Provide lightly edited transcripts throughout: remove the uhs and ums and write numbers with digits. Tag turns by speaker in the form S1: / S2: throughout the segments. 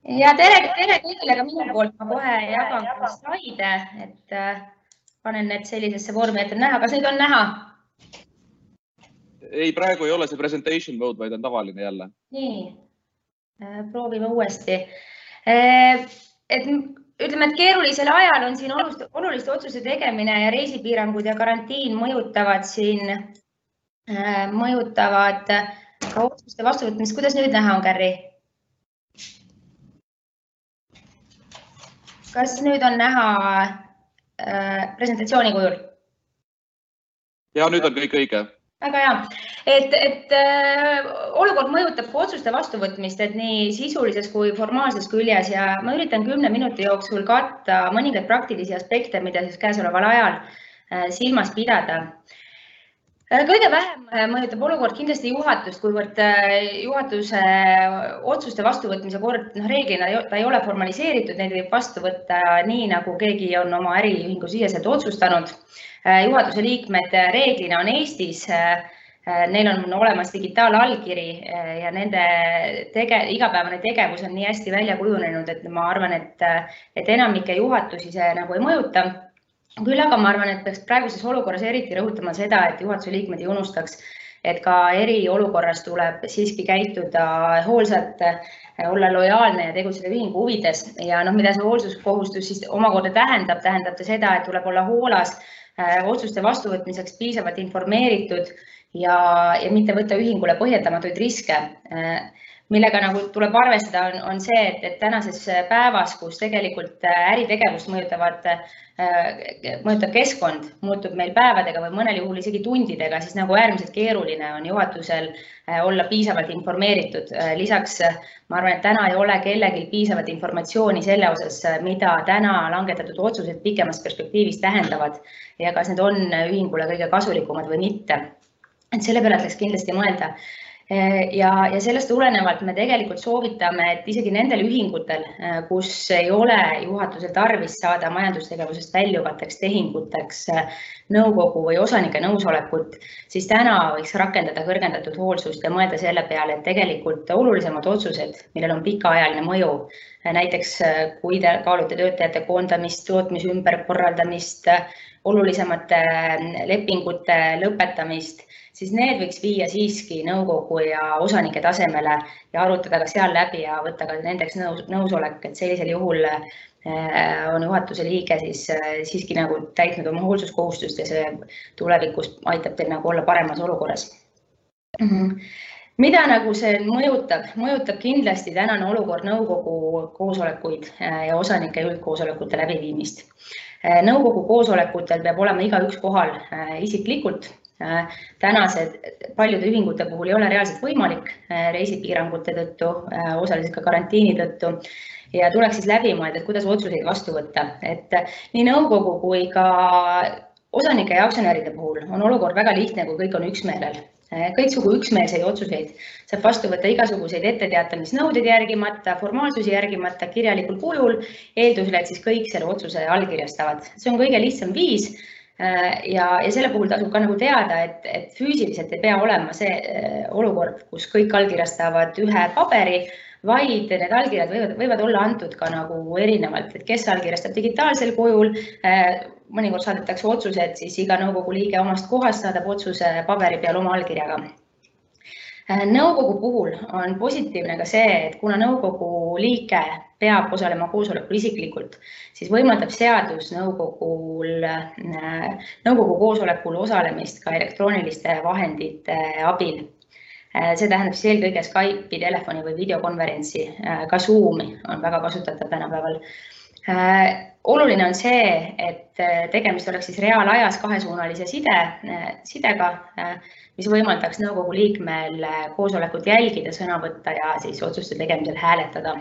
S1: Ja tere kõigile ka minu poolt. Ma kohe jagan slaide, et panen need sellisesse vormi, et on näha. Kas neid on näha?
S2: Ei, praegu ei ole see presentation mode, vaid on tavaline jälle.
S1: Nii, proovime uuesti. Ütleme, et keerulisel ajal on siin oluliste otsuse tegemine ja reisipiirangud ja karantiin mõjutavad ka otsuste vastuvõtmist. Kuidas nüüd näha on, Kärri? Kas nüüd on näha presentatsiooni kujul?
S2: Ja nüüd on kõik õige.
S1: Väga hea. Et olukord mõjutab ka otsuste vastuvõtmist, et nii sisulises kui formaalses küljes ja ma üritan 10 minuti jooksul katta mõningaid praktilisi aspekte, mida siis käesoleval ajal silmas pidada. Kõige vähem mõjutab olukord kindlasti juhatust, kuivõrd juhatuse otsuste vastuvõtmise kord reeglina ta ei ole formaliseeritud, neid võib vastu võtta nii, nagu keegi on oma äriühingu siseselt otsustanud. Juhatuse liikmed reeglina on Eestis, neil on olemas digitaalallkiri ja nende igapäevane tegevus on nii hästi välja kujunenud, et ma arvan, et enamike juhatusi see nagu ei mõjuta. Küll aga ma arvan, et peaks praeguses olukorras eriti rõhutama seda, et juhatuse liikmed ei unustaks, et ka eriolukorras tuleb siiski käituda hoolsalt, olla lojaalne ja tegutseda ühingu huvides. Ja mida see hoolsuskohustus siis omakorda tähendab ta seda, et tuleb olla hoolas otsuste vastuvõtmiseks piisavalt informeeritud ja mitte võtta ühingule põhjendamatuid riske. Millega nagu tuleb arvestada on see, et tänases päevas, kus tegelikult äritegevust mõjutab keskkond, muutub meil päevadega või mõnel juhul isegi tundidega, siis nagu äärmiselt keeruline on juhatusel olla piisavalt informeeritud. Lisaks ma arvan, et täna ei ole kellelgi piisavalt informatsiooni selle osas, mida täna langetatud otsused pikemas perspektiivis tähendavad ja kas need on ühingule kõige kasulikumad või mitte. Et selle peale tuleks kindlasti mõelda. Ja sellest tulenevalt me tegelikult soovitame, et isegi nendel ühingutel, kus ei ole juhatusel tarvis saada majandustegevusest väljuvateks tehinguteks nõukogu või osanike nõusolekut, siis täna võiks rakendada kõrgendatud hoolsust ja mõelda selle peale, et tegelikult olulisemad otsused, millel on pikaajaline mõju, näiteks kui te kaalute töötajate koondamist, tootmise ümberkorraldamist, olulisemate lepingute lõpetamist, siis need võiks viia siiski nõukogu ja osanike tasemele ja arutada ka seal läbi ja võtta ka nendeks nõusolek, et sellisel juhul on juhatuse liige siiski nagu täitnud oma hoolsuskohustust ja see tulevikus aitab teil nagu olla paremas olukorras. Mida nagu see mõjutab kindlasti tänane olukord nõukogu koosolekuid ja osanike üldkoosolekute läbiviimist. Nõukogu koosolekutel peab olema igaüks kohal isiklikult. Tänased paljude ühingute puhul ei ole reaalselt võimalik reisipiirangute tõttu, osaliselt ka karantiini tõttu ja tuleks siis läbi mõelda, et kuidas otsuseid vastu võtta. Et nii nõukogu kui ka osanike ja aktsionäride puhul on olukord väga lihtne, kui kõik on üksmeelel. Kõiksugu üksmeelseid otsuseid saab vastu võtta igasuguseid etteteatamisnõudeid järgimata, formaalsusi järgimata, kirjalikul kujul, eeldusel, et siis kõik selle otsuse allkirjastavad. See on kõige lihtsam viis. Ja selle puhul tasub ka nagu teada, et füüsiliselt ei pea olema see olukord, kus kõik allkirjastavad ühe paberi, vaid need allkirjad võivad olla antud ka nagu erinevalt, et kes allkirjastab digitaalsel kujul, mõnikord saadetakse otsused, siis iga nõukogu liige omast kohast saadab otsuse paberi peal oma allkirjaga. Nõukogu puhul on positiivne ka see, et kuna nõukogu liige peab osalema koosolekul isiklikult, siis võimaldab seadus nõukogu koosolekul osalemist ka elektrooniliste vahendite abil. See tähendab siis eelkõige Skype'i, telefoni või videokonverentsi, ka Zoomi on väga kasutatav tänapäeval. Oluline on see, et tegemist oleks siis reaalajas kahesuunalise sidega, mis võimaldaks nõukogu liikmel koosolekut jälgida, sõna võtta ja siis otsuste tegemisel hääletada.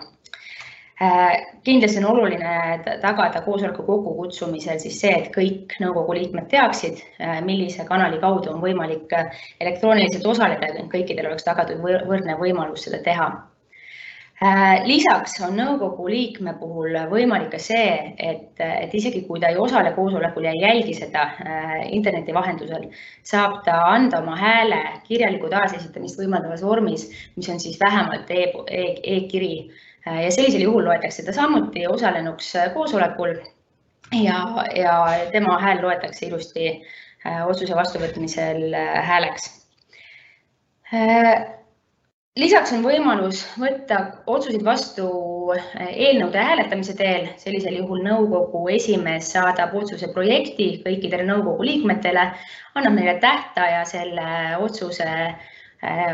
S1: Kindlasti on oluline tagada koosoleku kokkukutsumisel siis see, et kõik nõukogu liikmed teaksid, millise kanali kaudu on võimalik elektrooniliselt osaleda, et kõikidel oleks tagatud võrdne võimalus seda teha. Lisaks on nõukogu liikme puhul võimalik ka see, et isegi kui ta ei osale koosolekul ja ei jälgi seda interneti vahendusel, saab ta anda oma hääle kirjaliku taasesitamist võimaldavas vormis, mis on siis vähemalt e-kiri. Ja sellisel juhul loetakse ta samuti osalenuks koosolekul ja tema hääl loetakse ilusti otsuse vastuvõtmisel hääleks. Lisaks on võimalus võtta otsuseid vastu eelnõude hääletamise teel. Sellisel juhul nõukogu esimees saadab otsuse projekti kõikidele nõukogu liikmetele, annab neile tähtaja selle otsuse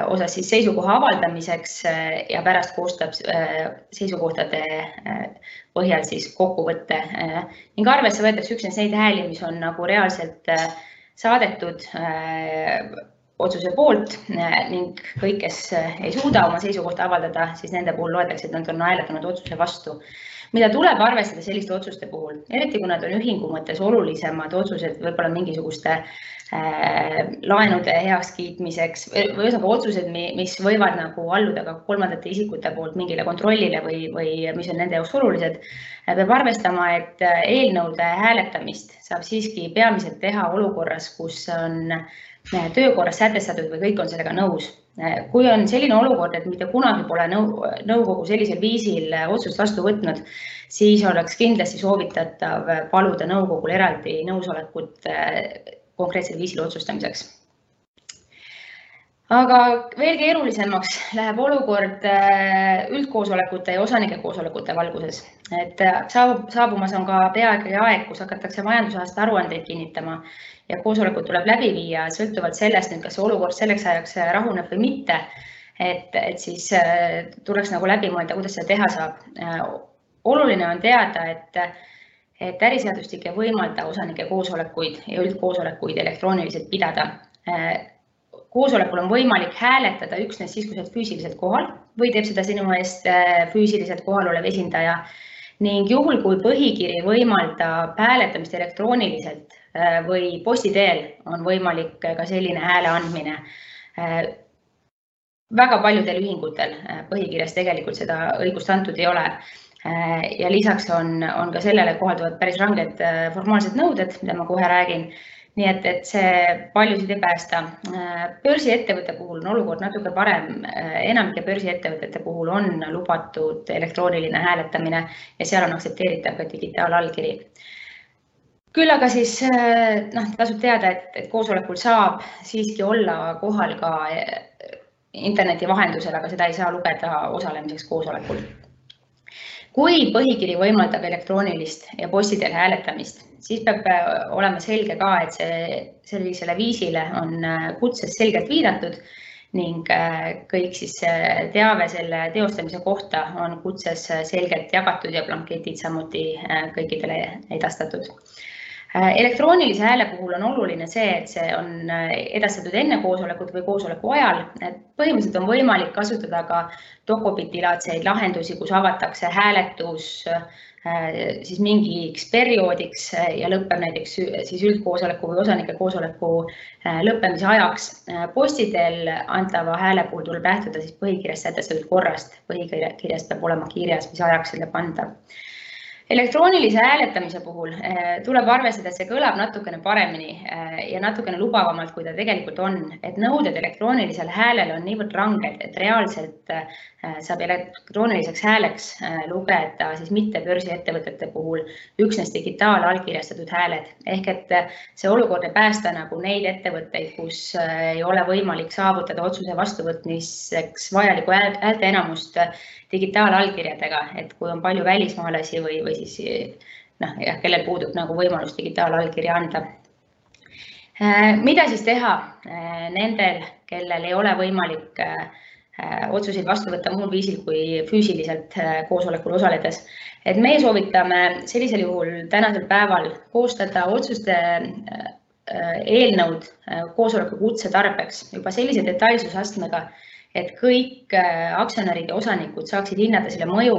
S1: osas siis seisukoha avaldamiseks ja pärast koostab seisukohtade põhjal siis kokkuvõtte. Ning arvesse võetakse üksnes neid hääli, mis on nagu reaalselt saadetud otsuse poolt ning kõik, kes ei suuda oma seisukohta avaldada, siis nende puhul loetakse, et nad on hääletanud otsuse vastu. Mida tuleb arvestada selliste otsuste puhul, eriti kui nad on ühingu mõttes olulisemad otsused, võib-olla mingisuguste laenude heakskiitmiseks või otsused, mis võivad nagu alluda ka kolmandate isikute poolt mingile kontrollile või mis on nende jaoks olulised, peab arvestama, et eelnõude hääletamist saab siiski peamiselt teha olukorras, kus on töökorras sätestatud või kõik on sellega nõus. Kui on selline olukord, et mitte kunagi pole nõukogu sellisel viisil otsust vastu võtnud, siis oleks kindlasti soovitatav paluda nõukogul eraldi nõusolekut konkreetsel viisil otsustamiseks. Aga veel keerulisemaks läheb olukord üldkoosolekute ja osanike koosolekute valguses. Et saabumas on ka peaaegu aeg, kus hakatakse majandusaasta aruandeid kinnitama ja koosolekud tuleb läbi viia sõltuvalt sellest, kas olukord selleks ajaks rahuneb või mitte. Et siis tuleks nagu läbi mõelda, kuidas seda teha saab. Oluline on teada, et äriseadustik ei võimalda osanike koosolekuid ja üldkoosolekuid elektrooniliselt pidada. Koosolekul on võimalik hääletada üksnes siis, kui sa oled füüsiliselt kohal või teeb seda sinu eest füüsiliselt kohal olev esindaja. Ning juhul, kui põhikiri võimaldab hääletamist elektrooniliselt või posti teel, on võimalik ka selline hääle andmine. Väga paljudel ühingutel põhikirjas tegelikult seda õigust antud ei ole. Ja lisaks on ka sellele kohalduvad päris ranged formaalsed nõuded, mida ma kohe räägin. Nii et see paljusid ei päästa. Börsiettevõtte puhul on olukord natuke parem. Enamike börsiettevõtete puhul on lubatud elektrooniline hääletamine ja seal on aktsepteeritav ka digitaalallkiri. Küll aga siis tasub teada, et koosolekul saab siiski olla kohal ka interneti vahendusel, aga seda ei saa lugeda osalemiseks koosolekul. Kui põhikiri võimaldab elektroonilist ja posti teel hääletamist, siis peab olema selge ka, et sellisele viisile on kutses selgelt viidatud ning kõik siis teave selle teostamise kohta on kutses selgelt jagatud ja blanketid samuti kõikidele edastatud. Elektroonilise hääle puhul on oluline see, et see on edastatud enne koosolekut või koosoleku ajal. Põhimõtteliselt on võimalik kasutada ka dokopiti-laadseid lahendusi, kus avatakse hääletus siis mingiks perioodiks ja lõpeb näiteks siis üldkoosoleku või osanike koosoleku lõppemise ajaks. Posti teel antava hääle puhul tuleb lähtuda siis põhikirjast sätestatud korrast. Põhikirjast peab olema kirjas, mis ajaks selle panda. Elektroonilise hääletamise puhul tuleb arvestada, et see kõlab natukene paremini ja natukene lubavamalt, kui ta tegelikult on. Et nõuded elektroonilisel häälel on niivõrd ranged, et reaalselt saab elektrooniliseks hääleks lugeda siis mitte börsiettevõtete puhul üksnes digitaalallkirjastatud hääled. Ehk et see olukord ei päästa nagu neid ettevõtteid, kus ei ole võimalik saavutada otsuse vastuvõtmiseks vajalikku häälte enamust digitaalallkirjadega, et kui on palju välismaalasi või siis kellel puudub nagu võimalus digitaalallkirja anda. Mida siis teha nendel, kellel ei ole võimalik otsuseid vastu võtta muul viisil kui füüsiliselt koosolekul osaledes? Et meie soovitame sellisel juhul tänasel päeval koostada otsuste eelnõud koosoleku kutse tarbeks juba sellise detailsusastmega, et kõik aktsionärid ja osanikud saaksid hinnata selle mõju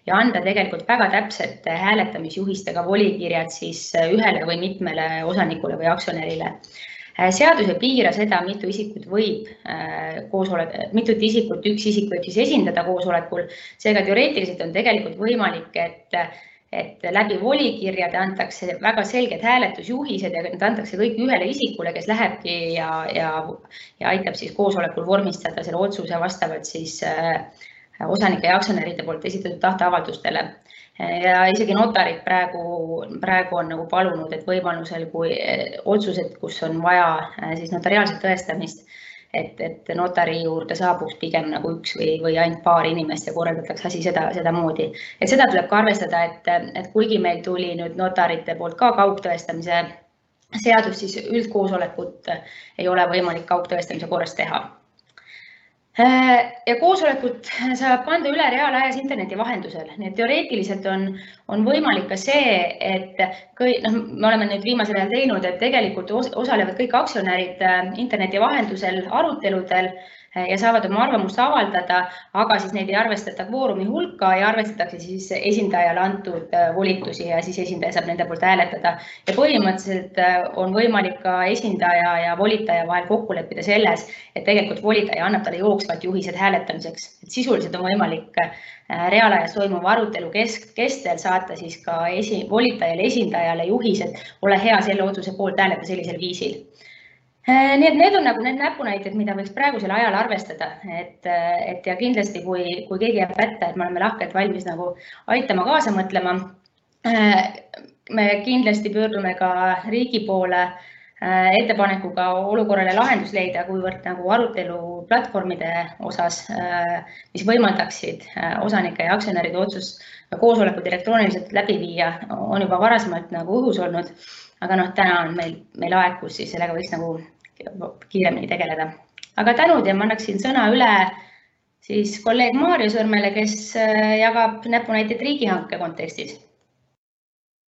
S1: ja anda tegelikult väga täpselt hääletamisjuhistega volikirjad siis ühele või mitmele osanikule või aktsionärile. Seadus ei piira seda, mitu isikut üks isik võib siis esindada koosolekul. Seega teoreetiliselt on tegelikult võimalik, et läbi volikirjade antakse väga selged hääletusjuhised ja need antakse kõik ühele isikule, kes lähebki ja aitab siis koosolekul vormistada selle otsuse vastavalt siis osanike ja aktsionäride poolt esitatud tahteavaldustele. Ja isegi notarid praegu on nagu palunud, et võimalusel, kui otsused, kus on vaja siis notariaalset tõestamist, et notari juurde saabuks pigem nagu üks või ainult paar inimest ja korraldatakse asi seda moodi. Et seda tuleb ka arvestada, et kuigi meil tuli nüüd notarite poolt ka kaugtõestamise seadus, siis üldkoosolekut ei ole võimalik kaugtõestamise korras teha. Ja koosolekut saab kanda üle reaalajas interneti vahendusel. Nii et teoreetiliselt on võimalik ka see, et me oleme nüüd viimasel ajal teinud, et tegelikult osalevad kõik aktsionärid interneti vahendusel aruteludel ja saavad oma arvamust avaldada, aga siis neid ei arvestata kvoorumi hulka ja arvestatakse siis esindajale antud volitusi ja siis esindaja saab nende poolt hääletada. Ja põhimõtteliselt on võimalik ka esindaja ja volitaja vahel kokku leppida selles, et tegelikult volitaja annab talle jooksvalt juhised hääletamiseks. Et sisuliselt on võimalik reaalajas toimuva arutelu kestel saata siis ka volitajale esindajale juhised, ole hea selle otsuse poolt hääleta sellisel viisil. Nii et need on nagu need näpunäited, mida võiks praegusel ajal arvestada, et ja kindlasti, kui keegi jääb pätta, et me oleme lahkelt valmis nagu aitama kaasa mõtlema, me kindlasti pöördume ka riigi poole ettepanekuga olukorrale lahendus leida, kuivõrd nagu arutelu platvormide osas, mis võimaldaksid osanike ja aktsionäride otsus koosolekud elektrooniliselt läbi viia, on juba varasemalt nagu õhus olnud, aga täna on meil aeg, kus siis sellega võiks nagu kiiremini tegeleda. Aga tänud ja ma annaksin sõna üle siis kolleeg Maarjo Sõrmele, kes jagab näpunäiteid riigihanke kontekstis.